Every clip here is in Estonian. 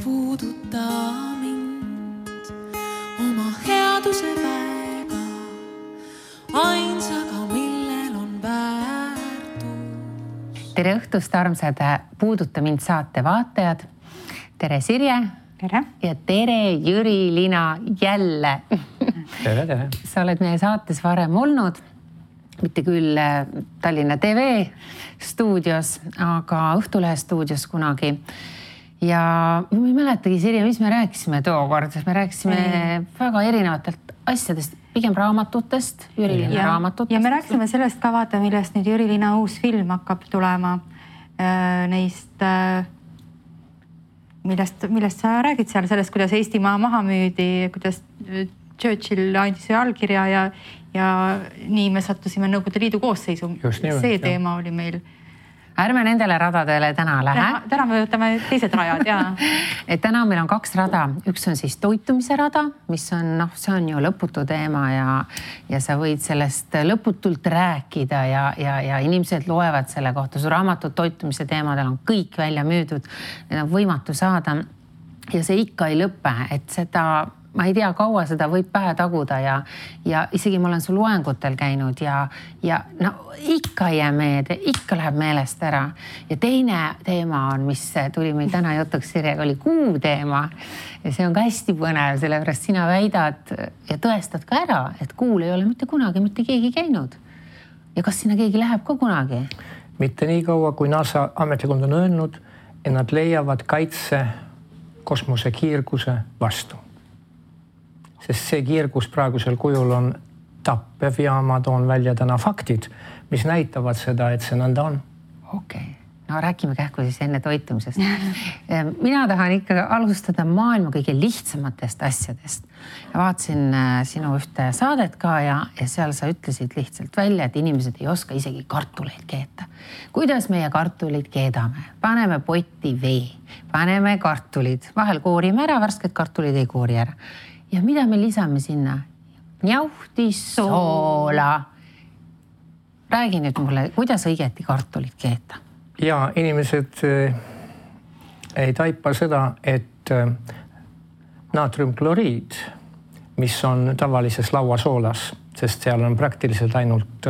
puuduta mind oma headuse väega, ainsaga, millel on väärtus. Tere õhtust, armsad Puuduta mind saate vaatajad. Tere Sirje. Tere. Ja tere Jüri-Lina jälle. Tere. Sa oled meie saates varem olnud, mitte küll Tallinna TV stuudios, aga Õhtulehe stuudios kunagi. Ja ma ei mäletagi, Sirje, mis me rääkisime tookord. Me rääkisime väga erinevatelt asjadest, pigem raamatutest, Jüri-Lina raamatutest. Ja me rääkisime sellest ka vaata, millest nüüd Jüri-Lina uus film hakkab tulema. Neist, millest sa räägid seal, sellest, kuidas Eestimaa maha müüdi, kuidas Churchill andis allkirja ja nii me sattusime Nõukogude Liidu koosseisu. See teema oli meil. Ärme nendele radadele täna lähe. Täna me võtame teised rajad, jaa. Et täna meil on 2 rada. Üks on siis toitumise rada, mis on, see on ju lõputu teema ja sa võid sellest lõputult rääkida ja inimesed loevad selle kohta. Su raamatud toitumise teemadel on kõik välja müüdud. Need on võimatu saada ja see ikka ei lõpe, et seda... Ma ei tea, kaua seda võib pähe taguda ja isegi ma olen su loengutel käinud ja no ikka ei jää meelde, ikka läheb meelest ära. Ja teine teema on, mis tuli meil täna jutuks Sirjega, oli kuu teema. Ja see on ka hästi põnev, sellepärast sina väidad ja tõestad ka ära, et kuul ei ole mitte kunagi mitte keegi käinud. Ja kas sinna keegi läheb ka kunagi? Mitte nii kaua, kui NASA ametlikult on öelnud, et nad leiavad kaitse kosmosekiirguse vastu. Sest see kiirgus praegusel kujul on tappev ja ma toon välja täna faktid, mis näitavad seda, et see nõnda on. Okei. No räägime kähku siis enne toitumisest. Mina tahan ikka alustada maailma kõige lihtsamatest asjadest. Ja vaatasin sinu ühte saadet ka ja seal sa ütlesid lihtsalt välja, et inimesed ei oska isegi kartuleid keeta. Kuidas meie kartuleid keedame? Paneme potti vee, paneme kartulid, vahel koorime ära, värsked kartulid ei koori ära. Ja mida me lisame sinna? Njauhtis, soola. Räägi nüüd mulle, kuidas õigeti kartulit keeta? Ja inimesed ei taipa seda, et naatriumkloriid, mis on tavalises lauasoolas, sest seal on praktiliselt ainult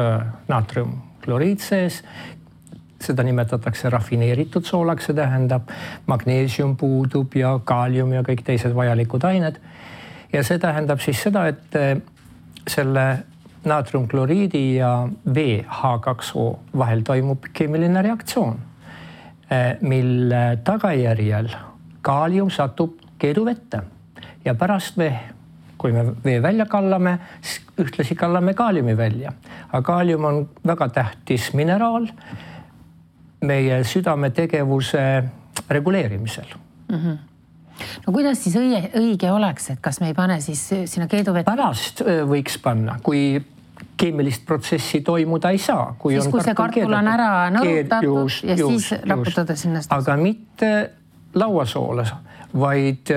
naatriumkloriid sees, seda nimetatakse rafineeritud soolaks, see tähendab magneesium puudub ja kaalium ja kõik teised vajalikud ained. Ja see tähendab siis seda, et selle naatriumkloriidi ja vee H2O vahel toimub keemiline reaktsioon, mille tagajärjel kaalium satub keeduvette ja pärast kui me vee välja kallame, ühtlasi kallame kaaliumi välja. Aga kaalium on väga tähtis mineraal meie südame tegevuse reguleerimisel. No kuidas siis õige oleks, et kas me ei pane siis sinna keeduvette? Pärast võiks panna, kui keemilist protsessi toimuda ei saa. Siis kui see kartul on ära nõrutatud ja siis raputada sinna. Aga mitte lauasoola, vaid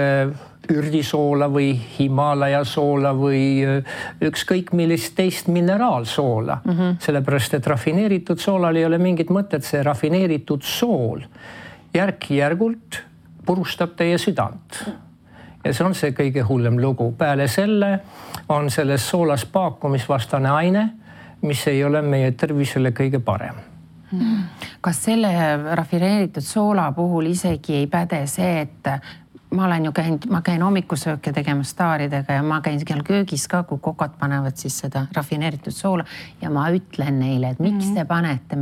ürdisoola või Himaalaja soola või ükskõik millist teist mineraalsoola. Sellepärast, et rafineeritud soolal ei ole mingit mõtet, see rafineeritud sool järk-järgult purustab teie südant. Ja see on see kõige hullem lugu. Peale selle on selles soolas paakumisvastane aine, mis ei ole meie tervisele kõige parem. Kas selle rafineeritud soola puhul isegi ei päde see, et ma käin hommikusööke tegema staaridega ja ma käin seal köögis ka, kui kokad panevad siis seda rafineeritud soola ja ma ütlen neile, et miks te panete,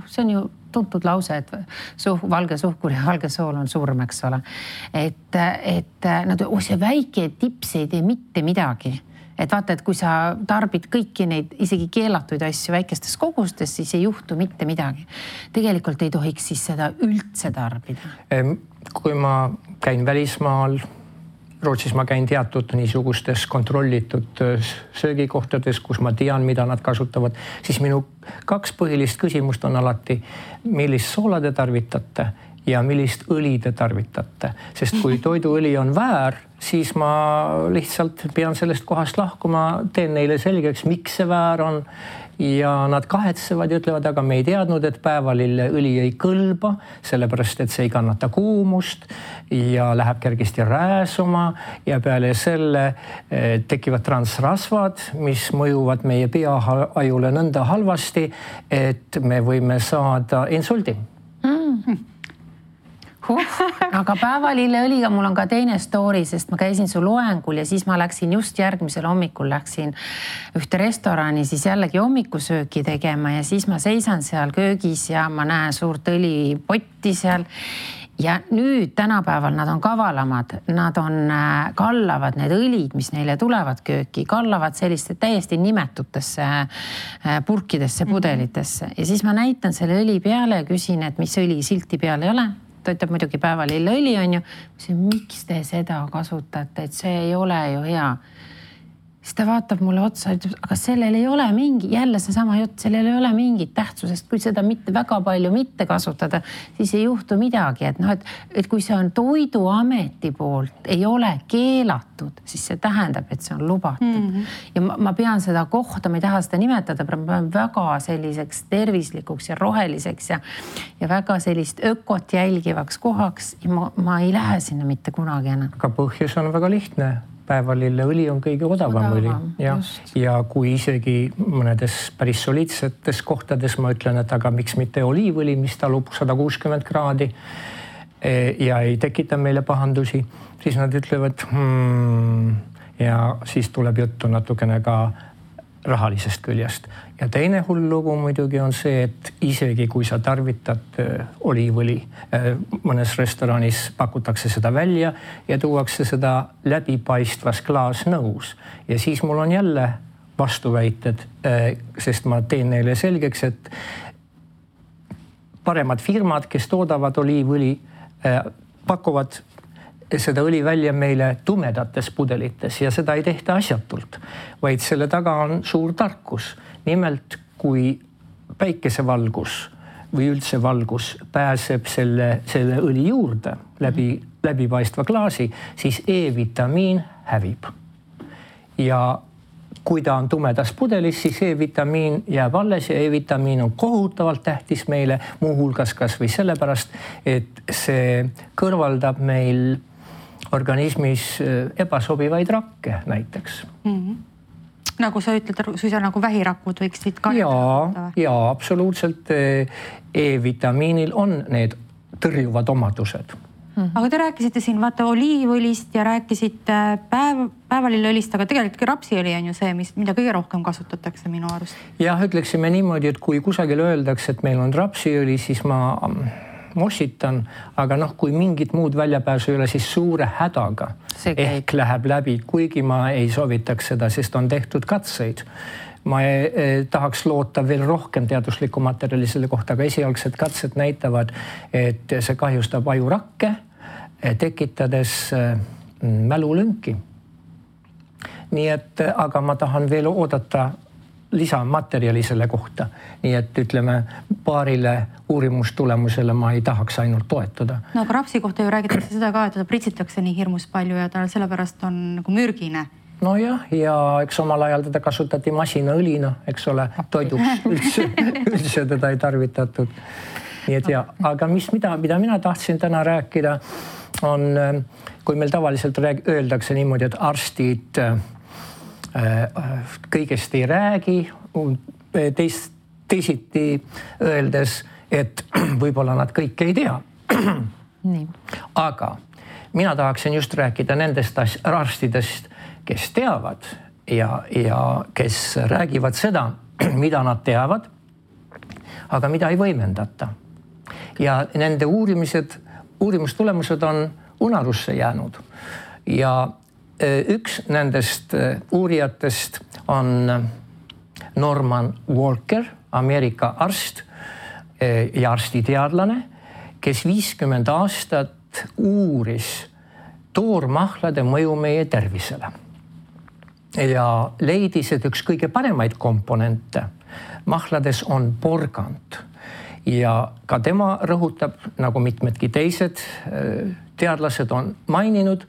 see on ju tuntud lause, et valge suhkur ja valge sool on surm, eks ole. Et see väike tips ei tee mitte midagi. Et vaata, et kui sa tarbid kõiki neid isegi keelatuid asju väikestes kogustes, siis ei juhtu mitte midagi. Tegelikult ei tohiks siis seda üldse tarbida. Kui ma käin välismaal, Rootsis ma käin teatud niisugustes kontrollitud söögikohtades, kus ma tean, mida nad kasutavad, siis minu 2 põhilist küsimust on alati, millist soola te tarvitate ja millist õli te tarvitate. Sest kui toiduõli on väär, siis ma lihtsalt pean sellest kohast lahkuma, teen neile selgeks, miks see väär on ja nad kahetsevad ja ütlevad, aga me ei teadnud, et päevalilleõli ei kõlba, sellepärast et see ei kannata kuumust ja läheb kergesti rääsuma ja peale selle tekivad transrasvad, mis mõjuvad meie peaajule nõnda halvasti, et me võime saada insuldi. Aga päevalilleõliga mul on ka teine story, sest ma käisin su loengul ja siis ma läksin just järgmisel hommikul ühte restorani siis jällegi hommikusööki tegema ja siis ma seisan seal köögis ja ma näen suurt õlipotti seal. Ja nüüd tänapäeval nad on kavalamad, nad kallavad need õlid, mis neile tulevad kööki, kallavad selliste täiesti nimetutesse purkidesse, pudelitesse ja siis ma näitan selle õli peale ja küsin, et mis õli silti peal ei ole. Ta ütleb muidugi päevalilleõli on ju. Miks te seda kasutate, et see ei ole ju hea. Siis ta vaatab mulle otsa, aga sellel ei ole jälle seesama jutt, sellel ei ole mingit tähtsusest, kui seda väga palju mitte kasutada, siis ei juhtu midagi, et kui see on Toiduameti poolt, ei ole keelatud, siis see tähendab, et see on lubatud. Ja ma pean seda kohta, ma ei taha seda nimetada, ma pean väga selliseks tervislikuks ja roheliseks ja väga sellist ökot jälgivaks kohaks ja ma ei lähe sinna mitte kunagi enam. Aga põhjus on väga lihtne. Päevalilleõli on kõige odavam õli ja kui isegi mõnedes päris soliidsetes kohtades ma ütlen, et aga miks mitte oliivõli, mis talub 160 kraadi ja ei tekita meile pahandusi, siis nad ütlevad ja siis tuleb juttu natukene ka rahalisest küljest. Ja teine hull lugu muidugi on see, et isegi kui sa tarvitad oliivõli, mõnes restoranis pakutakse seda välja ja tuuakse seda läbipaistvas klaasnõus. Ja siis mul on jälle vastuväited, sest ma teen neile selgeks, et paremad firmad, kes toodavad oliivõli, pakuvad seda õli välja meile tumedates pudelites ja seda ei tehta asjatult, vaid selle taga on suur tarkus. Nimelt, kui päikesevalgus või üldse valgus pääseb selle õli juurde läbipaistva klaasi, siis E-vitamiin hävib. Ja kui ta on tumedas pudelis, siis E-vitamiin jääb alles ja E-vitamiin on kohutavalt tähtis meile, muuhulgas kas või sellepärast, et see kõrvaldab meil organismis ebasobivaid rakke näiteks. Nagu sa ütled, suisa nagu vähirakud võiksid kannata? Jaa, absoluutselt. E-vitamiinil on need tõrjuvad omadused. Aga te rääkisite siin oliivõlist ja rääkisite päevalilleõlist, aga tegelikult rapsiõli on ju see, mida kõige rohkem kasutatakse minu arust. Jah, ütleksime niimoodi, et kui kusagil öeldakse, et meil on rapsiõli, siis ma mossitan, aga kui mingit muud väljapääsu ei ole, siis suure hädaga ehk läheb läbi, kuigi ma ei soovitaks seda, sest on tehtud katseid. Ma tahaks loota veel rohkem teaduslikku materjali selle kohta, aga esialgsed katsed näitavad, et see kahjustab ajurakke, tekitades mälulünki. Nii et, aga ma tahan veel oodata lisamaterjali selle kohta. Nii et ütleme, paarile uurimustulemusele ma ei tahaks ainult toetada. No aga rapsi kohta ju räägitakse seda ka, et ta pritsitakse nii hirmus palju ja ta sellepärast on nagu mürgine. No jah, ja eks omal ajal teda kasutati masinaõlina, eks ole, toiduks üldse teda ei tarvitatud. Nii et aga mida mina tahtsin täna rääkida on, kui meil tavaliselt öeldakse niimoodi, et arstid kõigest ei räägi, teisiti öeldes, et võib-olla nad kõike ei tea. Aga mina tahaksin just rääkida nendest arstidest, kes teavad ja kes räägivad seda, mida nad teavad, aga mida ei võimendata. Ja nende uurimustulemused on unarusse jäänud. Ja üks nendest uurijatest on Norman Walker, Ameerika arst ja arstiteadlane, kes 50 aastat uuris toormahlade mõju meie tervisele. Ja leidis, et üks kõige paremaid komponente mahlades on porgand. Ja ka tema rõhutab, nagu mitmedki teised teadlased on maininud,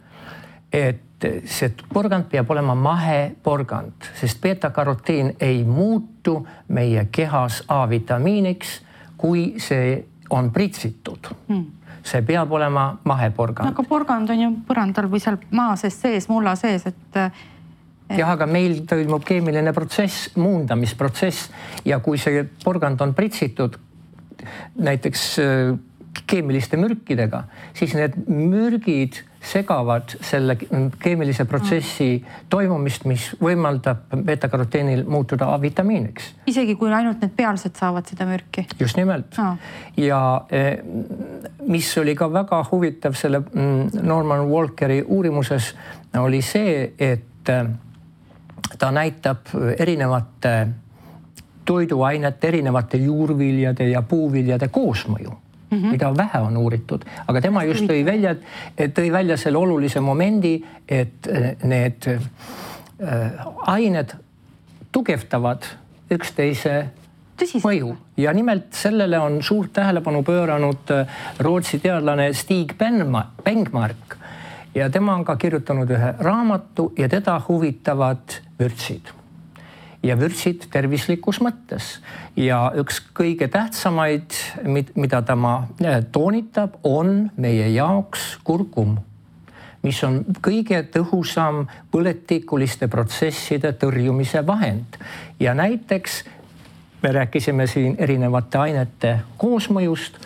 et see porgand peab olema maheporgand, sest beta-karotiin ei muutu meie kehas A-vitamiiniks, kui see on pritsitud. See peab olema maheporgand. Aga porgand on ju põrandal või seal maa sees, mulla sees, et... Jah, aga meil toimub keemiline protsess, muundamisprotsess ja kui see porgand on pritsitud näiteks keemiliste mürkidega, siis need mürgid segavad selle keemilise protsessi toimumist, mis võimaldab beta-karoteenil muutuda A-vitamiiniks. Isegi kui ainult need pealsed saavad seda mürki? Just nimelt. Ja mis oli ka väga huvitav selle Norman Walkeri uurimuses, oli see, et ta näitab erinevate toiduainete, erinevate juurviljade ja puuviljade koosmõju. Mida vähe on uuritud, aga tema just tõi välja selle olulise momendi, et need ained tugevdavad üksteise mõju ja nimelt sellele on suurt tähelepanu pööranud Rootsi teadlane Stig Bengmark ja tema on ka kirjutanud ühe raamatu ja teda huvitavad vürtsid. Ja vürtsid tervislikus mõttes. Ja üks kõige tähtsamaid, mida ta toonitab, on meie jaoks kurkum, mis on kõige tõhusam põletikuliste protsesside tõrjumise vahend. Ja näiteks me rääkisime siin erinevate ainete koosmõjust.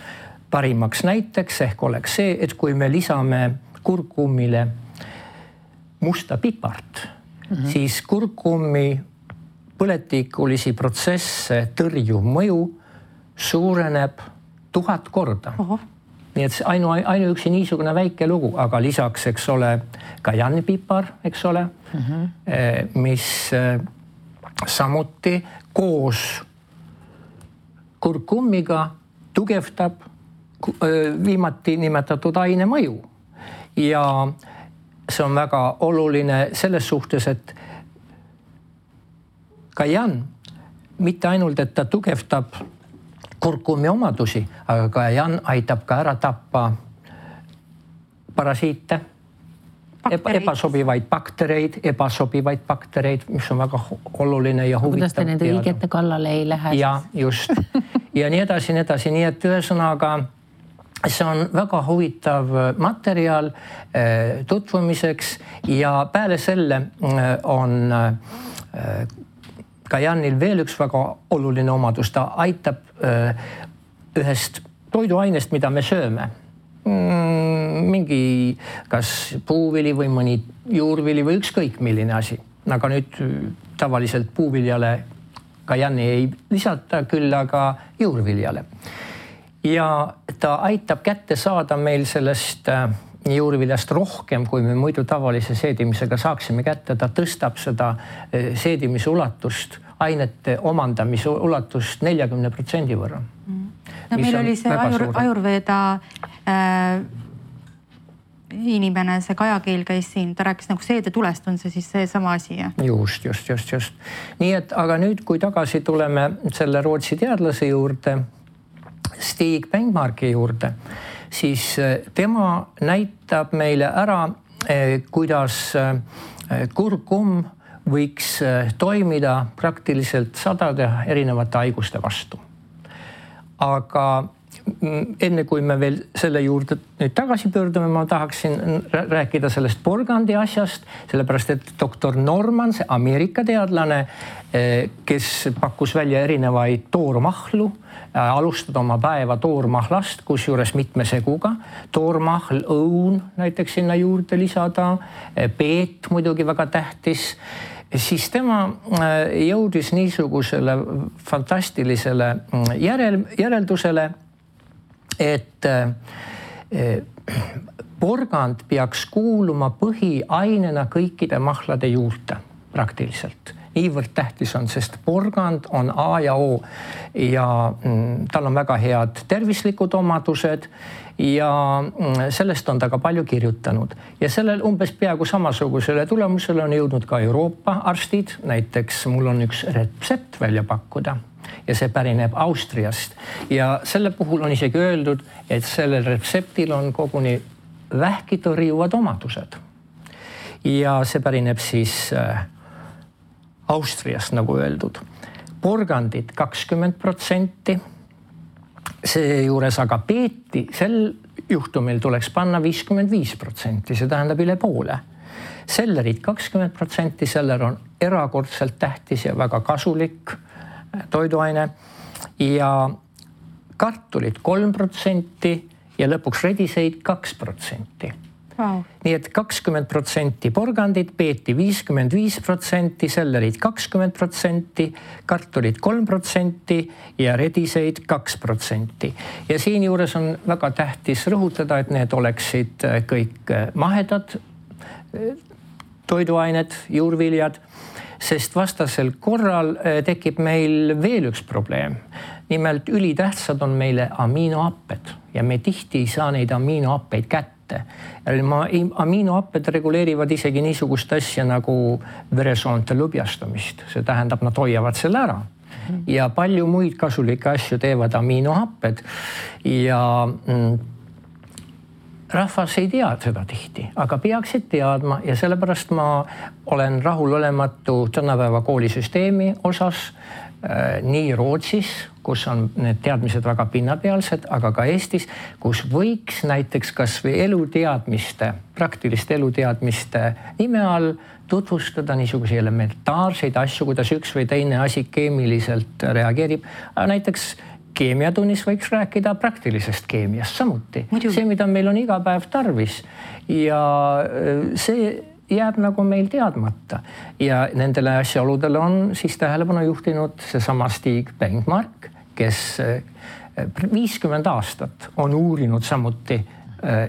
Parimaks näiteks ehk oleks see, et kui me lisame kurkumile musta pipart, siis kurkumi põletikulisi protsesse tõrjuv mõju suureneb 1000 korda. Nii et ainuüksi niisugune väike lugu, aga lisaks, eks ole, kajanipipar, eks ole, mis samuti koos kurkumiga tugevdab viimati nimetatud aine mõju. Ja see on väga oluline selles suhtes, et kajan, mitte ainult, et ta tugevdab kurkumi omadusi, aga kajan aitab ka ära tappa parasiite, ebasobivaid baktereid, mis on väga oluline ja huvitav. Kuidas te nende õigete kallale ei lähe? Ja just. Ja nii edasi. Nii et ühesõnaga, see on väga huvitav materjal tutvumiseks ja peale selle on kajanil veel üks väga oluline omadus, ta aitab ühest toiduainest, mida me sööme. Mingi kas puuvili või mõni juurvili või ükskõik milline asi. Aga nüüd tavaliselt puuviljale kajani ei lisata, küll aga juurviljale. Ja ta aitab kätte saada meil sellest juurviljast rohkem, kui me muidu tavalise seedimisega saaksime kätte. Ta tõstab seda seedimise ulatust, ainete omandamise ulatust 40% võrra. No meil oli see Ajurveda inimene, see Kajakeel käis siin, ta rääkis nagu seedetulest, on see siis see sama asi? Just. Nii et, aga nüüd, kui tagasi tuleme selle Rootsi teadlase juurde, Stig Bengmarki juurde, siis tema näitab meile ära, kuidas kurkum võiks toimida praktiliselt sadade erinevate haiguste vastu. Aga enne kui me veel selle juurde nüüd tagasi pöördume, ma tahaksin rääkida sellest porgandi asjast, sellepärast et doktor Norman, see Ameerika teadlane, kes pakkus välja erinevaid toormahlu, alustada oma päeva toormahlast, kus juures mitme seguga, toormahl, õun näiteks sinna juurde lisada, peet muidugi väga tähtis, siis tema jõudis niisugusele fantastilisele järeldusele, et porgand peaks kuuluma põhiainena kõikide mahlade juurde praktiliselt. Niivõrd tähtis on, sest porgand on A ja O ja tal on väga head tervislikud omadused ja sellest on ta ka palju kirjutanud. Ja sellel umbes peaaegu samasugusele tulemusele on jõudnud ka Euroopa arstid. Näiteks mul on üks retsept välja pakkuda ja see pärineb Austriast. Ja selle puhul on isegi öeldud, et sellel retseptil on koguni vähki tõrjuvad omadused. ja see pärineb siis Austriast, nagu öeldud. Porgandid 20%, seejuures aga peeti, sel juhtumil tuleks panna 55%, see tähendab üle poole. Sellerid 20%, seller on erakordselt tähtis ja väga kasulik toiduaine ja kartulid 3% ja lõpuks rediseid 2%. Wow. Nii et 20% porgandid, peeti 55%, sellerid 20%, kartulid 3% ja rediseid 2%. Ja siin juures on väga tähtis rõhutada, et need oleksid kõik mahedad toiduained, juurviljad, sest vastasel korral tekib meil veel üks probleem. Nimelt ülitähtsad on meile aminohapped ja me tihti ei saa neid aminohappeid kätte. Aminohapped reguleerivad isegi niisugust asja nagu veresoonte lõbjastumist. See tähendab, nad hoiavad selle ära. Ja palju muid kasulikke asju teevad aminohapped ja rahvas ei tea seda tihti, aga peaksid teadma ja sellepärast ma olen rahulolematu tänapäeva koolisüsteemi osas nii Rootsis, kus on need teadmised väga pinnapealsed, aga ka Eestis, kus võiks näiteks kas või eluteadmiste, praktiliste eluteadmiste nime all tutvustada niisuguse elementaarseid asju, kuidas üks või teine asi keemiliselt reageerib. Näiteks keemiatunnis võiks rääkida praktilisest keemiast samuti. See, mida meil on iga päev tarvis ja see jääb nagu meil teadmata ja nendele asjaoludele on siis tähelepanu juhtinud seesama Stig Bengmark, kes 50 aastat on uurinud samuti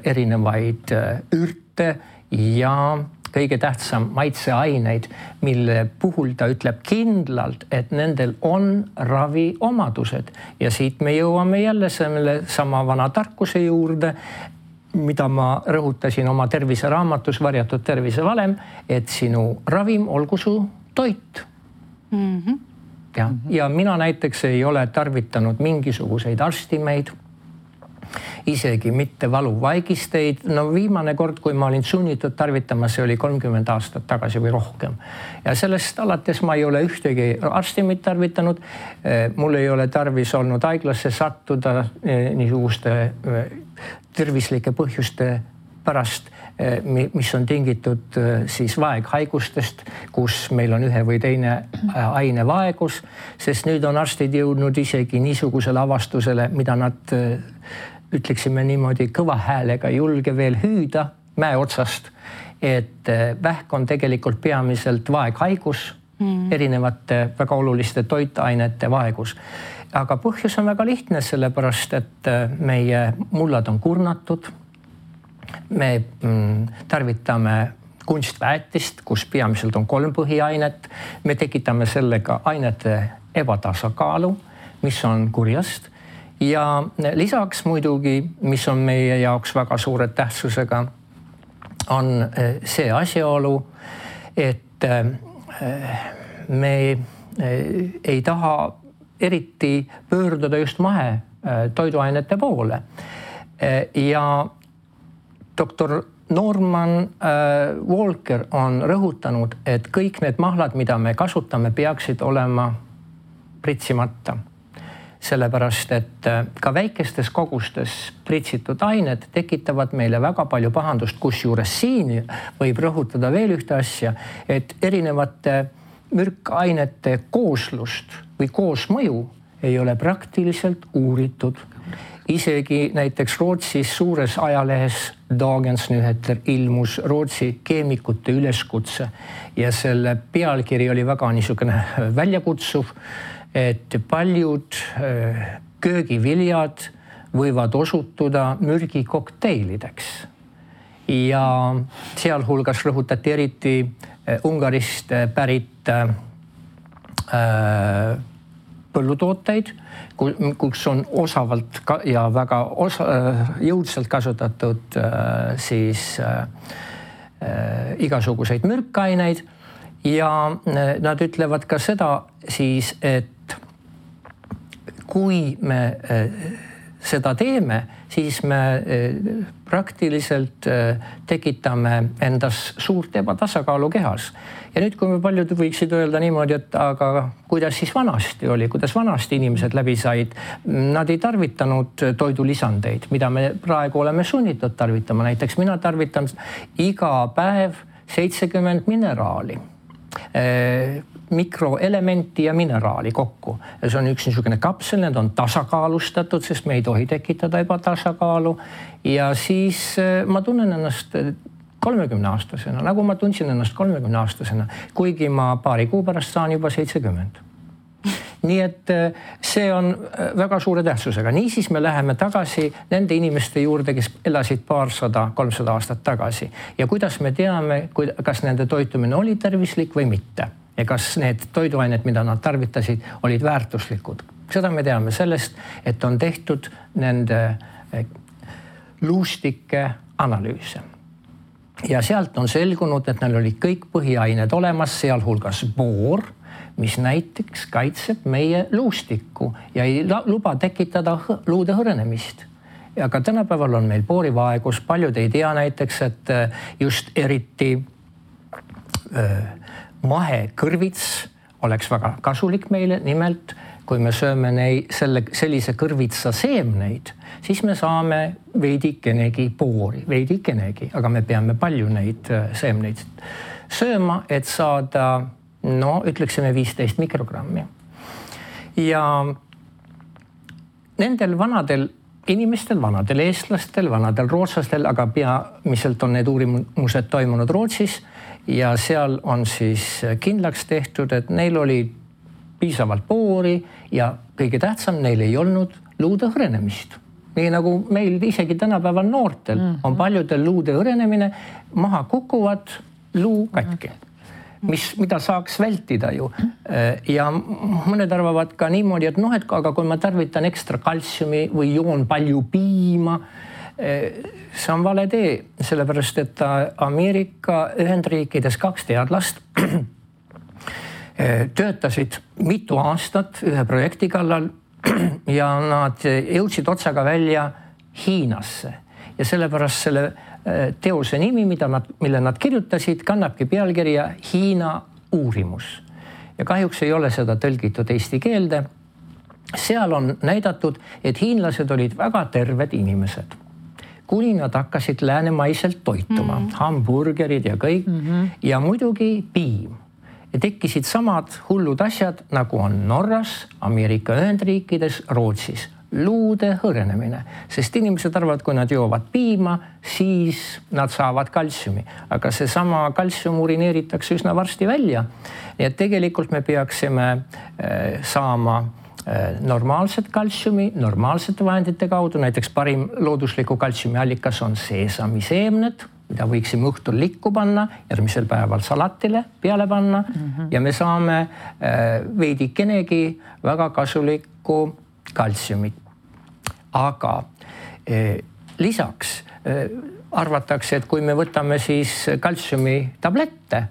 erinevaid ürte ja kõige tähtsam maitseaineid, mille puhul ta ütleb kindlalt, et nendel on raviomadused ja siit me jõuame jälle selle sama vana tarkuse juurde, mida ma rõhutasin oma terviseraamatus Varjatud tervisevalem, et sinu ravim olgu su toit. Ja mina näiteks ei ole tarvitanud mingisuguseid arstimeid, isegi mitte valuvaigisteid. No viimane kord, kui ma olin sunnitud tarvitama, see oli 30 aastat tagasi või rohkem. Ja sellest alates ma ei ole ühtegi arstimit tarvitanud. Mul ei ole tarvis olnud haiglasse sattuda niisuguste tervislike põhjuste pärast, mis on tingitud siis vaeghaigustest, kus meil on ühe või teine aine vaegus, sest nüüd on arstid jõudnud isegi niisugusele avastusele, mida nad ütleksime niimoodi kõva häälega julge veel hüüda mäe otsast, et vähk on tegelikult peamiselt vaeghaigus, erinevate väga oluliste toitainete vaegus. Aga põhjus on väga lihtne, sellepärast, et meie mullad on kurnatud. Me tarvitame kunstväetist, kus peamiselt on 3 põhiainet. Me tekitame sellega ainete ebatasakaalu, mis on kurjast. Ja lisaks muidugi, mis on meie jaoks väga suure tähtsusega, on see asjaolu, et me ei taha eriti pöörduda just mahe toiduainete poole. Ja doktor Norman Walker on rõhutanud, et kõik need mahlad, mida me kasutame, peaksid olema pritsimata. Sellepärast, et ka väikestes kogustes pritsitud ained tekitavad meile väga palju pahandust, kusjuures siin võib rõhutada veel ühte asja, et erinevate mürkainete kooslust või koosmõju ei ole praktiliselt uuritud. Isegi näiteks Rootsis suures ajalehes Dagens Nyheter ilmus Rootsi keemikute üleskutse ja selle pealkiri oli väga niisugune väljakutsuv, et paljud köögiviljad võivad osutuda mürgikokteilideks. Ja sealhulgas rõhutati eriti Ungarist pärit põllutooteid, kus on osavalt ja väga jõudsalt kasutatud siis igasuguseid mürkaineid ja nad ütlevad ka seda siis, et kui me seda teeme, siis me praktiliselt tekitame endas suurt ebatasakaalu kehas. Ja nüüd, kui me paljud võiksid öelda niimoodi, et aga kuidas siis vanasti oli, kuidas vanasti inimesed läbi said, nad ei tarvitanud toidulisandeid, mida me praegu oleme sunnitud tarvitama. Näiteks mina tarvitan iga päev 70 mineraali, mikroelementi ja mineraali kokku. Ja see on üks niisugune kapsel, need on tasakaalustatud, sest me ei tohi tekitada ebatasakaalu. Ja siis ma tunnen ennast 30-aastasena, nagu ma tundsin ennast 30-aastasena, kuigi ma paari kuu pärast saan juba 70. Nii et see on väga suure tähtsusega. Niisiis me läheme tagasi nende inimeste juurde, kes elasid 200-300 aastat tagasi. Ja kuidas me teame, kas nende toitumine oli tervislik või mitte? Ja kas need toiduained, mida nad tarvitasid, olid väärtuslikud? Seda me teame sellest, et on tehtud nende luustike analüüse. Ja sealt on selgunud, et neil olid kõik põhiained olemas, sealhulgas boor, mis näiteks kaitseb meie luustikku ja ei luba tekitada luude hõrenemist. Ja ka tänapäeval on meil boorivaegus, paljud ei tea näiteks, et just eriti mahekõrvits oleks väga kasulik meile, nimelt kui me sööme sellise kõrvitsa seemneid, siis me saame veidikenegi boori, aga me peame palju neid seemneid sööma, et saada, ütleksime 15 mikrogrammi. Ja nendel vanadel inimestel, vanadel eestlastel, vanadel rootslastel, aga peamiselt on need uurimused toimunud Rootsis ja seal on siis kindlaks tehtud, et neil oli piisavalt boori ja kõige tähtsam, neil ei olnud luude hõrenemist. Nii nagu meil isegi tänapäeval noortel on paljudel luude hõrenemine, maha kukuvad luu katki, mida saaks vältida ju. Ja mõned arvavad ka niimoodi, et aga kui ma tarvitan ekstra kaltsiumi või joon palju piima, see on vale tee, sellepärast et Ameerika Ühendriikides 2 teadlast töötasid mitu aastat ühe projekti kallal ja nad jõudsid otsaga välja Hiinasse. Ja sellepärast selle teose nimi, mille nad kirjutasid, kannabki pealkirja Hiina uurimus. Ja kahjuks ei ole seda tõlgitud eesti keelde. Seal on näidatud, et hiinlased olid väga terved inimesed. Kuni nad hakkasid läänemaiselt toituma, hamburgerid ja kõik, ja muidugi piim. Ja tekkisid samad hullud asjad, nagu on Norras, Ameerika Ühendriikides, Rootsis. Luude hõrenemine, sest inimesed arvavad, kui nad joovad piima, siis nad saavad kaltsiumi. Aga see sama kaltsium urineeritakse üsna varsti välja. Nii et tegelikult me peaksime saama normaalset kaltsiumi, normaalsete vahendite kaudu. Näiteks parim loodusliku kaltsiumi allikas on seesamiseemned, mida võiksime õhtul likku panna, järgmisel päeval salatile peale panna ja me saame veidikenegi väga kasulikku kaltsiumit. Aga lisaks arvatakse, et kui me võtame siis kaltsiumi tablette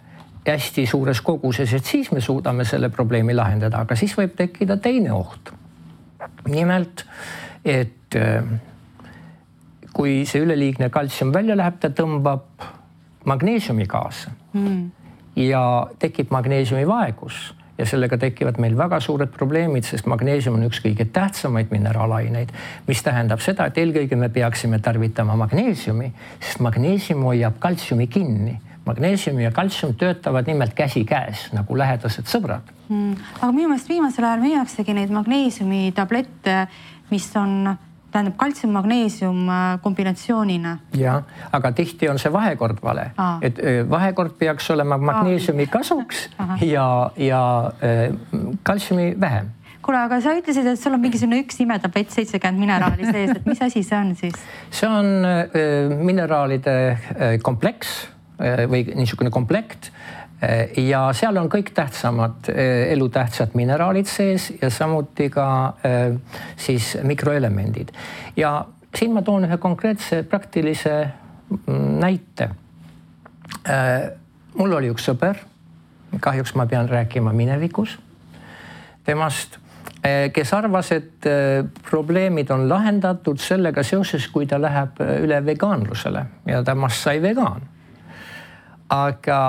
hästi suures koguses, et siis me suudame selle probleemi lahendada, aga siis võib tekkida teine oht. Nimelt, et kui see üleliigne kaltsium välja läheb, ta tõmbab magneesiumi kaasa ja tekib magneesiumi vaegus ja sellega tekivad meil väga suured probleemid, sest magneesium on üks kõige tähtsamaid mineraalaineid, mis tähendab seda, et eelkõige me peaksime tarvitama magneesiumi, sest magneesium hoiab kaltsiumi kinni. Magneesium ja kaltsium töötavad nimelt käsi käes, nagu lähedased sõbrad. Aga minu meelest viimasel ajal müüaksegi neid magneesiumi tablette, mis on kaltsium-magneesium kombinatsioonina. Ja, aga tihti on see vahekord vale. Et vahekord peaks olema magneesiumi kasuks ja kaltsiumi vähem. Kuule, aga sa ütlesid, et sul on mingisugune üks imetablett 70 mineraali sees, et mis asi see on siis? See on mineraalide kompleks või niisugune komplekt ja seal on kõik tähtsamad elutähtsad mineraalid sees ja samuti ka siis mikroelemendid. Ja siin ma toon ühe konkreetse praktilise näite. Mul oli üks sõber, kahjuks ma pean rääkima minevikus temast kes arvas, et probleemid on lahendatud sellega seoses, kui ta läheb üle vegaanlusele ja temast sai vegaan. Aga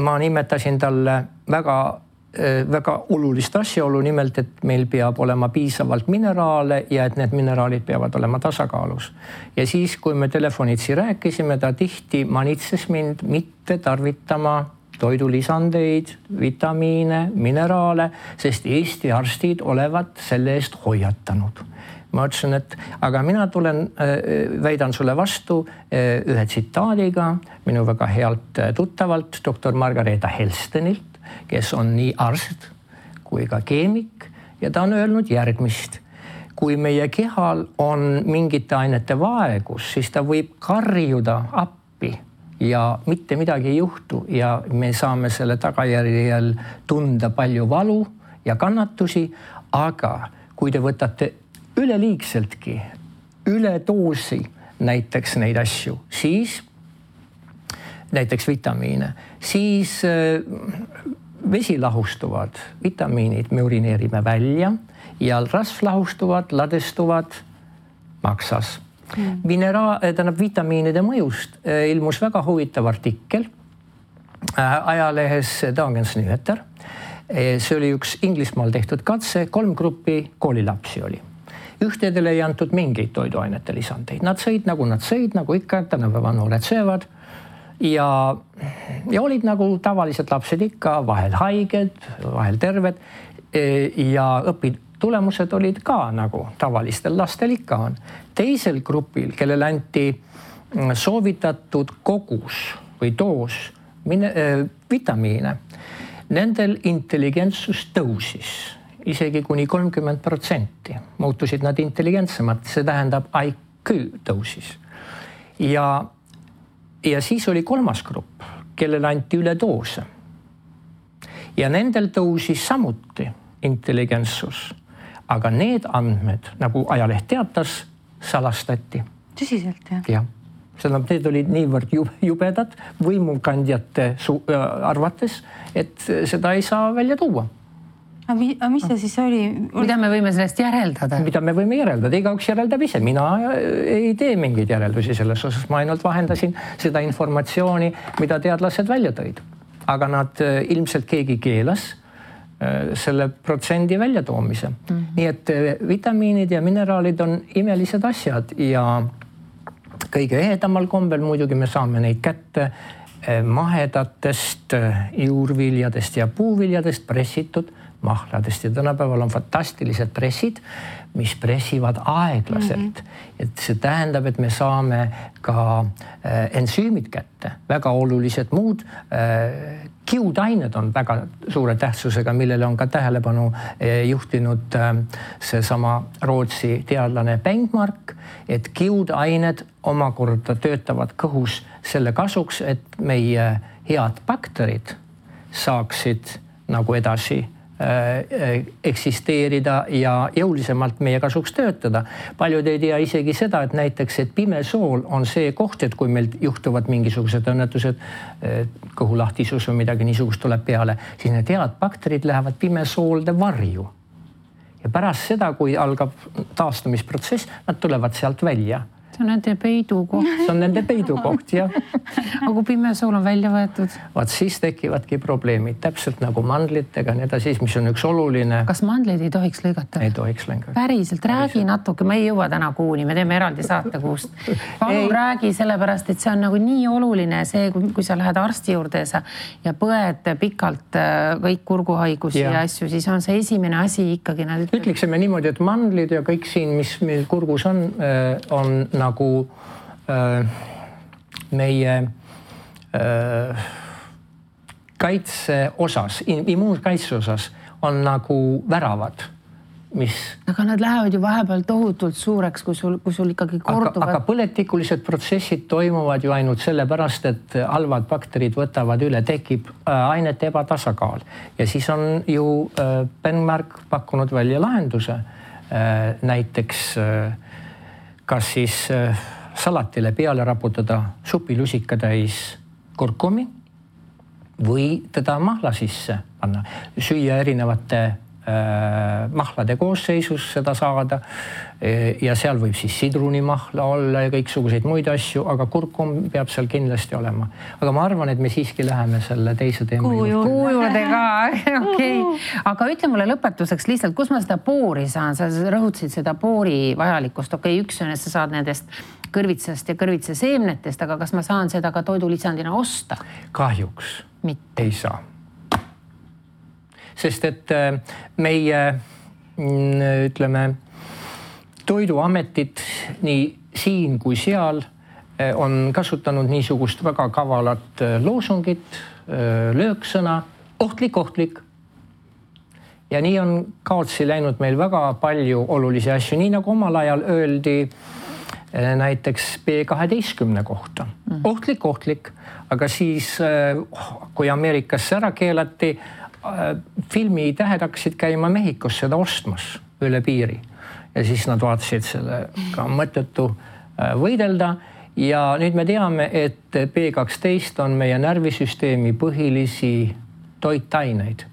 ma nimetasin talle väga olulist asjaolu, nimelt, et meil peab olema piisavalt mineraale ja et need mineraalid peavad olema tasakaalus. Ja siis, kui me telefonitsi rääkisime, ta tihti manitses mind mitte tarvitama toidulisandeid, vitamiine, mineraale, sest Eesti arstid olevat selle eest hoiatanud. Ma ütlesin, et aga mina väidan sulle vastu ühe tsitaadiga minu väga healt tuttavalt doktor Margareeta Helstenilt, kes on nii arst kui ka keemik ja ta on öelnud järgmist. Kui meie kehal on mingite ainete vaegus, siis ta võib karjuda appi ja mitte midagi ei juhtu ja me saame selle tagajärjel tunda palju valu ja kannatusi, aga kui te võtate üleliigseltki, üledoosi näiteks neid asju, siis näiteks vitamiine, siis vesi lahustuvad vitamiinid me urineerime välja ja rasvlahustuvad, ladestuvad maksas. Vitamiinide mõjust ilmus väga huvitav artikkel ajalehes Dagens Nyheter. See oli üks Inglismaal tehtud katse, 3 gruppi koolilapsi oli. Ühtedele ei antud mingeid toiduainete lisandeid. Nad sõid, nagu ikka, tänapäeva noored söövad. Ja olid nagu tavalised lapsed ikka, vahel haiged, vahel terved ja õpitulemused olid ka nagu tavalistel lastel ikka on. Teisel grupil, kellel anti soovitatud kogus või doos vitamiine, nendel intelligentsus tõusis isegi kuni 30%. Muutusid nad intelligentsemad, see tähendab IQ tõusis. Ja siis oli 3. grupp, kellele anti üledoose. Ja nendel tõusis samuti intelligentsus. Aga need andmed, nagu ajaleht teatas, salastati. Tõsiselt, jah? Jah. Need olid niivõrd jubedad võimukandjate arvates, et seda ei saa välja tuua. Aga mis see siis oli? Mida me võime sellest järeldada? Mida me võime järeldada? Igaüks järeldab ise. Mina ei tee mingeid järeldusi selles osas. Ma ainult vahendasin seda informatsiooni, mida teadlased välja tõid. Aga nad ilmselt keegi keelas selle protsendi väljatoomise. Nii et vitamiinid ja mineraalid on imelised asjad ja kõige ehedamal kombel muidugi me saame neid kätte mahedatest juurviljadest ja puuviljadest pressitud mahladest ja tänapäeval on fantastilised pressid, mis pressivad aeglaselt. Et see tähendab, et me saame ka ensüümid kätte, väga olulised muud. Kiudained on väga suure tähtsusega, millele on ka tähelepanu juhtinud seesama Rootsi teadlane Bengmark, et kiudained omakorda töötavad kõhus selle kasuks, et meie head bakterid saaksid nagu edasi eksisteerida ja jõulisemalt meie kasuks töötada. Paljud ei tea isegi seda, et näiteks, et pimesool on see koht, et kui meil juhtuvad mingisugused õnnetused, kõhulahtisus või midagi niisugust tuleb peale, siis need head bakterid lähevad pimesoolde varju. Ja pärast seda, kui algab taastumisprotsess, nad tulevad sealt välja. See on nende peidukoht. See on nende peidukoht, jah. Aga kui pimesool on välja võetud? Vaat siis tekivadki probleemid, täpselt nagu mandlitega, nii siis, mis on üks oluline. Kas mandleid ei tohiks lõigata? Ei tohiks lõigata. Päriselt, räägi natuke, ma ei jõua täna kuuni, me teeme eraldi saatekuust. Palun räägi sellepärast, et see on nagu nii oluline see, kui sa lähed arsti juurde ja põed pikalt kõik kurguhaigusi ja asju, siis on see esimene asi ikkagi. Ütleksime niimoodi, et mandlid ja kõik siin, mis meil kurgus on nagu meie kaitse osas, immuunkaitse osas on nagu väravad, mis... Aga nad lähevad ju vahepeal tohutult suureks, kui sul ikkagi korduvad... Aga põletikulised protsessid toimuvad ju ainult sellepärast, et halvad bakterid võtavad üle, tekib ainete ebatasakaal. Ja siis on ju Bengmark pakkunud välja lahenduse. Näiteks kas siis salatile peale raputada supilusika täis kurkumi või teda mahla sisse panna, süüa erinevate mahlade koosseisus seda saada. Ja seal võib siis sidrunimahla olla ja kõiksuguseid muid asju, aga kurkum peab seal kindlasti olema. Aga ma arvan, et me siiski läheme selle teise teema juurde ka. Okay. Aga ütle mulle lõpetuseks lihtsalt, kus ma seda poori saan? Sa rõhutasid seda poori vajalikkust. Okei, üks on, et sa saad nendest kõrvitsast ja kõrvitsa seemnetest, aga kas ma saan seda ka toidulisandina osta? Kahjuks mitte. Ei saa. Sest et meie, ütleme, toiduametid nii siin kui seal on kasutanud niisugust väga kavalat loosungit, lööksõna, ohtlik. Ja nii on kaotsi läinud meil väga palju olulisi asju, nii nagu omal ajal öeldi näiteks B12 kohta. Ohtlik, aga siis kui Ameerikas ära keelati, filmi tähed hakkasid käima Mehhikos seda ostmas üle piiri. Ja siis nad vaatasid sellega mõttetu võidelda ja nüüd me teame, et B12 on meie närvisüsteemi põhilisi toitaineid,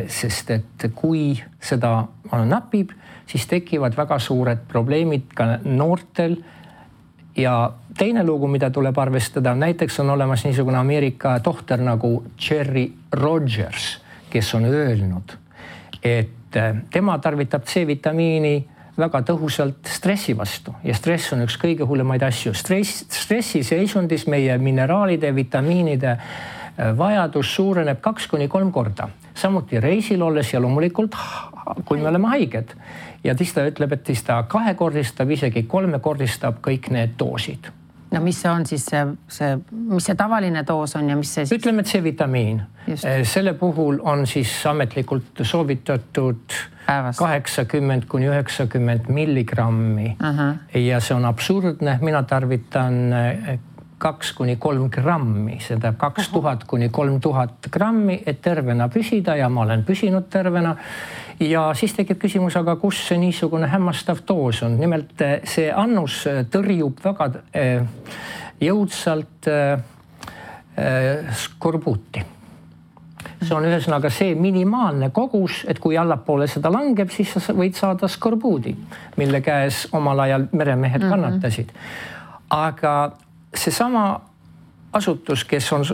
sest et kui seda napib, siis tekivad väga suured probleemid ka noortel. Ja teine lugu, mida tuleb arvestada, näiteks on olemas niisugune Ameerika tohter nagu Jerry Rogers, kes on öelnud, et tema tarvitab C-vitamiini väga tõhusalt stressi vastu ja stress on üks kõige hullemaid asju. Stressi seisundis meie mineraalide, vitamiinide vajadus suureneb 2-3 korda. Samuti reisil olles ja loomulikult, kui me oleme haiged. Ja ta ütleb, et ta 2-kordistab, isegi 3-kordistab kõik need doosid. No mis on siis mis see tavaline doos on ja mis see siis? Ütleme, et C-vitamiin. Selle puhul on siis ametlikult soovitatud 80-90 milligrammi. Ja see on absurdne. Mina tarvitan 2-3 grammi, seda 2000-3000 grammi, et tervena püsida ja ma olen püsinud tervena. Ja siis tekib küsimus, aga kus see niisugune hämmastav doos on? Nimelt see annus tõrjub väga jõudsalt skorbuuti. See on ühesõnaga see minimaalne kogus, et kui allapoole seda langeb, siis sa võid saada skorbuudi, mille käes omal ajal meremehed kannatasid. Aga seesama asutus, kes on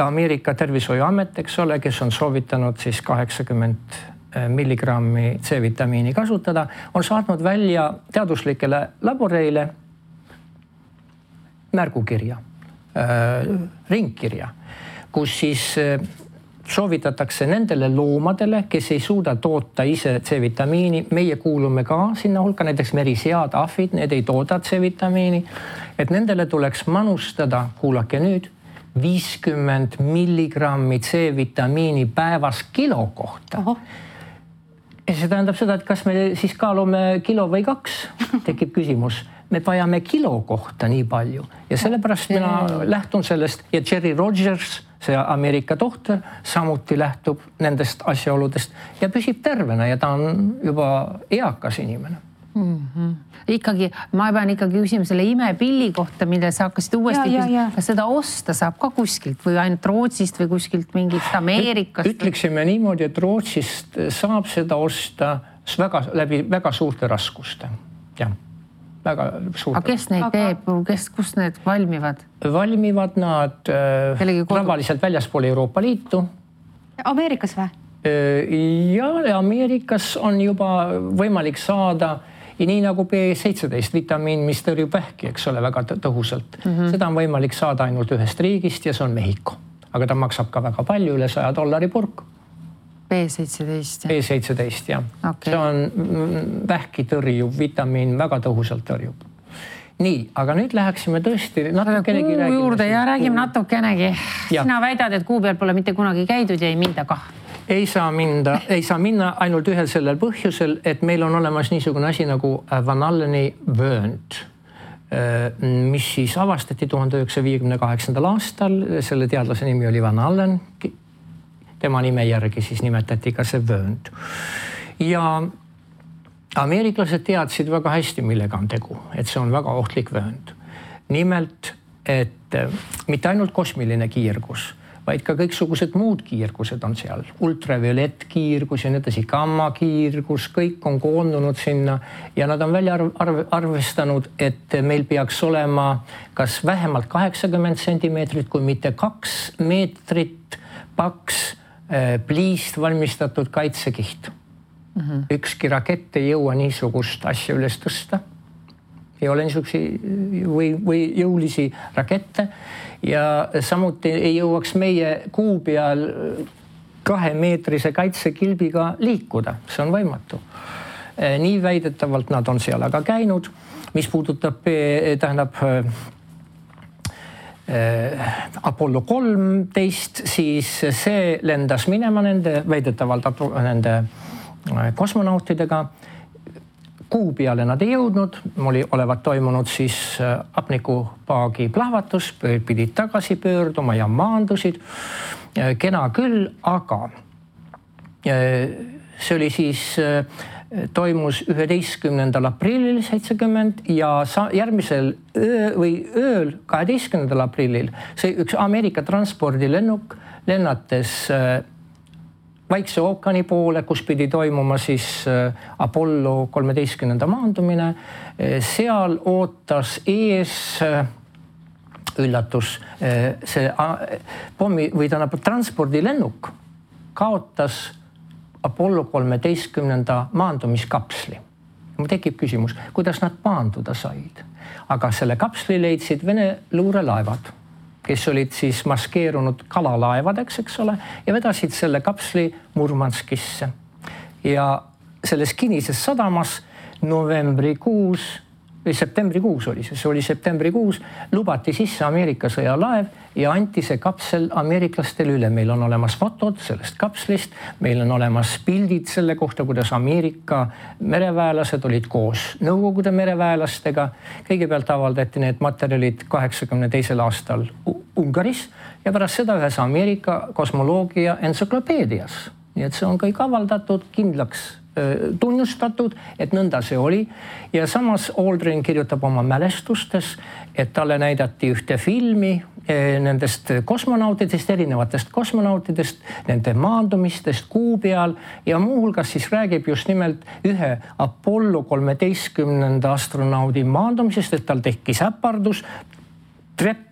Ameerika tervishoiuamet, eks ole, kes on soovitanud siis 80 milligrammi C-vitamiini kasutada, on saatnud välja teaduslikele laboreile märgukirja, ringkirja, kus siis soovitatakse nendele loomadele, kes ei suuda toota ise C-vitamiini. Meie kuulume ka sinna hulka, näiteks merisead, ahvid, need ei tooda C-vitamiini, et nendele tuleks manustada, kuulake nüüd, 50 milligrammi C-vitamiini päevas kilo kohta. Ja see tähendab seda, et kas me siis kaalume kilo või 2, tekib küsimus. Me vajame kilo kohta nii palju ja sellepärast mina lähtun sellest ja Jerry Rogers, see Ameerika tohter, samuti lähtub nendest asjaoludest ja püsib tervena ja ta on juba eakas inimene. Ikkagi, ma pean ikkagi küsima selle imepilli kohta, mille sa hakkasid uuesti küsima. Kas seda osta saab ka kuskilt või ainult Rootsist või kuskilt mingit Ameerikast? Ütleksime niimoodi, et Rootsist saab seda osta läbi väga suurte raskuste. Jah, väga suurte. Aga kes neid teeb? Kus need valmivad? Valmivad nad tavaliselt väljaspool Euroopa Liitu. Ameerikas või? Ja Ameerikas on juba võimalik saada ja nii nagu B17 vitamiin, mis tõrjub vähki, eks ole, väga tõhusalt. Seda on võimalik saada ainult ühest riigist ja see on Mehhiko. Aga ta maksab ka väga palju, üle $100 purk. B17? B17, jah. Okay. See on vähki tõrjub vitamiin, väga tõhusalt tõrjub. Nii, aga nüüd läheksime tõesti natukenegi räägime. Kuu juurde ja räägime natukenegi. Sina väidad, et kuu peal pole mitte kunagi käidud ja ei minda kah. Ei saa minna ainult ühel sellel põhjusel, et meil on olemas niisugune asi nagu Van Alleni vöönd, mis siis avastati 1958. aastal. Selle teadlase nimi oli Van Allen. Tema nime järgi siis nimetati ka see vöönd. Ja ameeriklased teadsid väga hästi, millega on tegu, et see on väga ohtlik vöönd. Nimelt, et mitte ainult kosmiline kiirgus, vaid ka kõiksugused muud kiirgused on seal. Ultraviolettkiirgus ja nii edasi, gammakiirgus, kõik on koondunud sinna ja nad on välja arvestanud, et meil peaks olema kas vähemalt 80 sentimeetrit, kui mitte 2 meetrit paks pliist valmistatud kaitsekiht. Ükski rakett ei jõua niisugust asja üles tõsta. Ei ole niisugusi või jõulisi rakette ja samuti ei jõuaks meie kuu peal 2-meetrise kaitsekilbiga liikuda. See on võimatu. Nii väidetavalt nad on seal aga käinud. Mis puudutab, Apollo 13, siis see lendas minema väidetavalt nende kosmonautidega. Kuu peale nad ei jõudnud, olevat toimunud siis hapnikupaagi plahvatus, pidid tagasi pöörduma ja maandusid. Kena küll, aga see oli siis, toimus 11. aprillil 70 ja järgmisel ööl 12. aprillil see üks Ameerika transpordilennuk lennates Vaikse ookeani poole, kus pidi toimuma siis Apollo 13. maandumine. Seal ootas ees üllatus, see pommi või transpordilennuk kaotas Apollo 13. maandumiskapsli. Mul tekib küsimus, kuidas nad maanduda said, aga selle kapsli leidsid Vene luurelaevad, kes olid siis maskeerunud kalalaevadeks, eks ole, ja vedasid selle kapsli Murmanskisse. Ja selles kinnises sadamas septembrikuus oli septembrikuus, lubati sisse Ameerika sõjalaev ja anti see kapsel ameeriklastele üle. Meil on olemas fotod sellest kapslist, meil on olemas pildid selle kohta, kuidas Ameerika mereväelased olid koos Nõukogude mereväelastega. Kõigepealt avaldati need materjalid 82. aastal Ungaris ja pärast seda ühes Ameerika kosmoloogia entsüklopeedias. Nii et see on kõik avaldatud, kindlaks tunnustatud, et nõnda see oli. Ja samas Aldrin kirjutab oma mälestustes, et talle näidati ühte filmi nendest kosmonautidest, erinevatest kosmonautidest, nende maandumistest kuu peal ja muuhulgas siis räägib just nimelt ühe Apollo 13. astronaudi maandumisest, et tal tekkis äpardus, trepp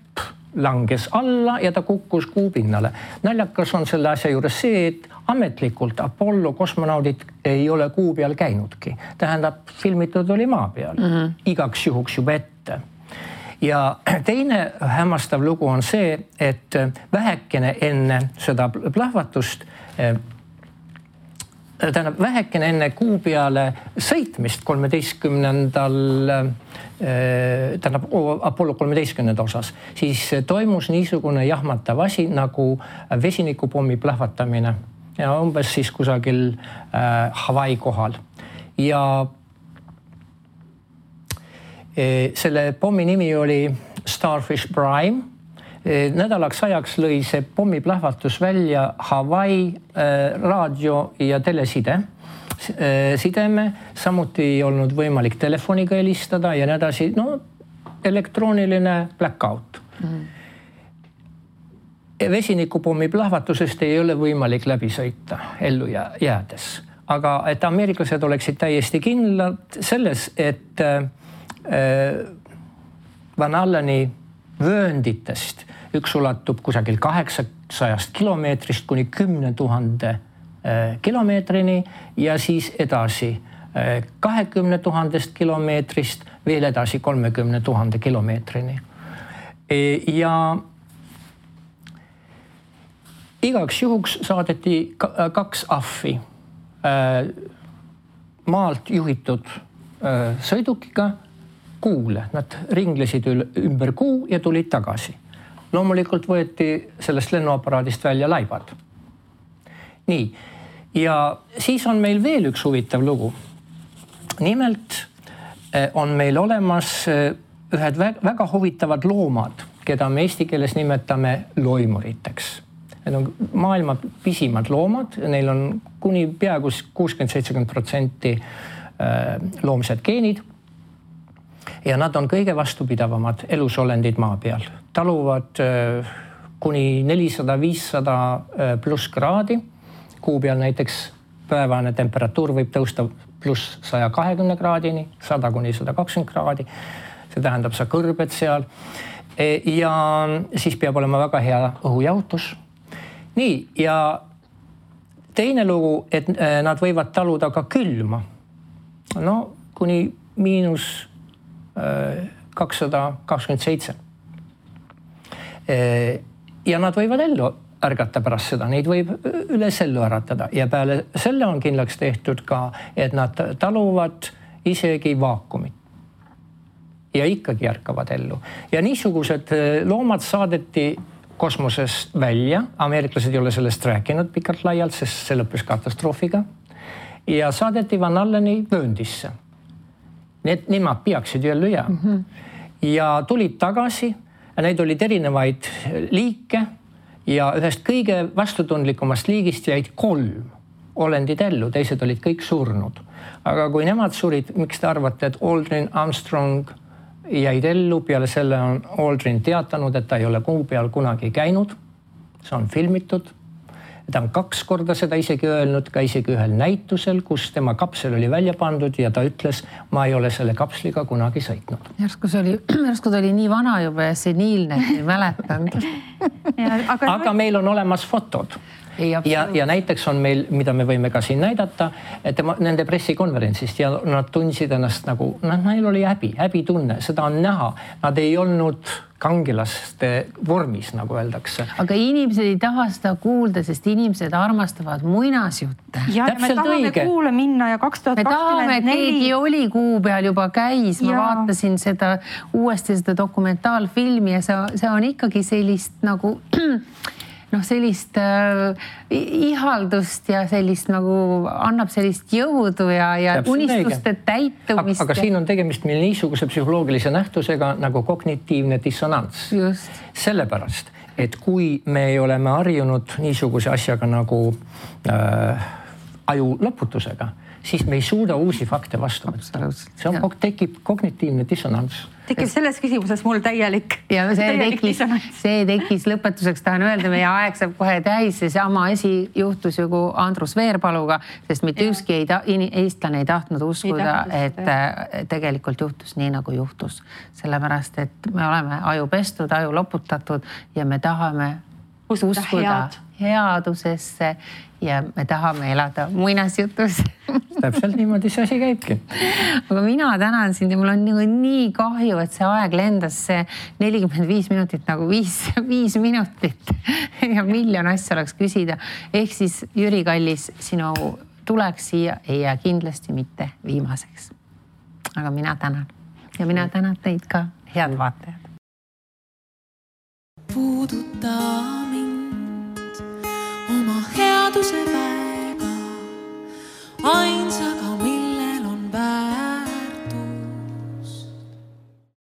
langes alla ja ta kukkus kuu pinnale. Naljakas on selle asja juures see, et ametlikult Apollo kosmonaudid ei ole kuu peal käinudki. Tähendab, filmitud oli maa peal. Igaks juhuks juba ette. Ja teine hämmastav lugu on see, et vähekene enne seda plahvatust, vähekene enne kuu peale sõitmist 13. Apollo 13. osas, siis toimus niisugune jahmatav asi nagu vesinikupommi plahvatamine ja umbes siis kusagil Hawaii kohal. Ja selle pommi nimi oli Starfish Prime. Nädalaks ajaks lõi see pommiplahvatus välja Hawaii raadio- ja telesideme. Samuti ei olnud võimalik telefoniga helistada ja nii edasi. No, elektrooniline blackout. Vesinikupommi plahvatusest ei ole võimalik läbi sõita ellu jäädes. Aga et ameeriklased oleksid täiesti kindlad selles, et Van Alleni vöönditest üks ulatub kusagil 800 kilomeetrist kuni 10 000 kilomeetrini ja siis edasi 20 000 kilomeetrist veel edasi 30 000 kilomeetrini. Ja igaks juhuks saadeti 2 ahvi maalt juhitud sõidukiga kuule. Nad ringlesid ümber kuu ja tulid tagasi. Loomulikult võeti sellest lennuaparaadist välja laibad. Nii, ja siis on meil veel üks huvitav lugu. Nimelt on meil olemas ühed väga huvitavad loomad, keda me eesti keeles nimetame loimuriteks. Need on maailma pisimad loomad, neil on kuni peaaegu 60-70% loomsed geenid. Ja nad on kõige vastupidavamad elusolendid maa peal. Taluvad kuni 400-500 pluss kraadi. Kuu peal näiteks päevane temperatuur võib tõusta pluss 120 kraadini, 100 kuni 120 kraadi. See tähendab, sa kõrbed seal. Ja siis peab olema väga hea õhujahutus. Nii, ja teine lugu, et nad võivad taluda ka külma. No, kuni miinus 227. Ja nad võivad ellu ärgata pärast seda, neid võib üles ellu äratada ja peale selle on kindlaks tehtud ka, et nad taluvad isegi vaakumit. Ja ikkagi ärkavad ellu. Ja niisugused loomad saadeti kosmosest välja. Ameeriklased ei ole sellest rääkinud pikalt laialt, sest see lõppes katastroofiga. Ja saadeti Van Alleni vööndisse. Nemad peaksid ju ellu jääma. Ja tulid tagasi ja neid olid erinevaid liike ja ühest kõige vastutundlikumast liigist jäid 3 olendid ellu, teised olid kõik surnud. Aga kui nemad surid, miks te arvate, et Aldrin Armstrong jäid ellu, peale selle on Aldrin teatanud, et ta ei ole kuu peal kunagi käinud. See on filmitud. Ta on 2 korda seda isegi öelnud, ka isegi ühel näitusel, kus tema kapsel oli välja pandud ja ta ütles, ma ei ole selle kapsliga kunagi sõitnud. Järsku ta oli nii vana juba ja seniilne, ei mäletanud. Aga meil on olemas fotod. Ja näiteks on meil, mida me võime ka siin näidata, et nende pressikonverentsist ja nad tundsid ennast nagu, neil oli häbitunne, seda on näha. Nad ei olnud kangelaste vormis, nagu öeldakse. Aga inimesed ei taha seda kuulda, sest inimesed armastavad muinasjutte. Ja me tahame kuule minna ja 2024. Me tahame, keegi oli kuu peal juba käis. Ma vaatasin uuesti seda dokumentaalfilmi ja see on ikkagi sellist nagu sellist ihaldust ja sellist nagu annab sellist jõudu ja unistuste täitumist. Aga siin on tegemist meil niisuguse psühholoogilise nähtusega nagu kognitiivne dissonants. Just. Sellepärast, et kui me oleme harjunud niisuguse asjaga nagu aju lõputusega, siis me ei suuda uusi fakte vastu võtta. Tekib kognitiivne dissonants. Tekib selles küsimuses mul täielik. Ja see tekkis lõpetuseks, tahan öelda, meie aeg saab kohe täis. See sama asi juhtus ju kui Andrus Veerpaluga, sest mitte ükski eestlane ei tahtnud uskuda, et tegelikult juhtus nii, nagu juhtus. Sellepärast, et me oleme aju pestud, aju loputatud ja me tahame uskuda headusesse ja me tahame elada muinasjutus. Täpselt niimoodi see asi käibki. Aga mina tänan sind ja mul on nii kahju, et see aeg lendas see 45 minutit nagu 5 minutit ja miljon asja oleks küsida. Ehk siis Jüri Kallis, sinu tuleks siia ei jää kindlasti mitte viimaseks. Aga mina tänan ja mina tänan teid ka, head vaatajad. Puuduta mind oma headuse väega, ainsaga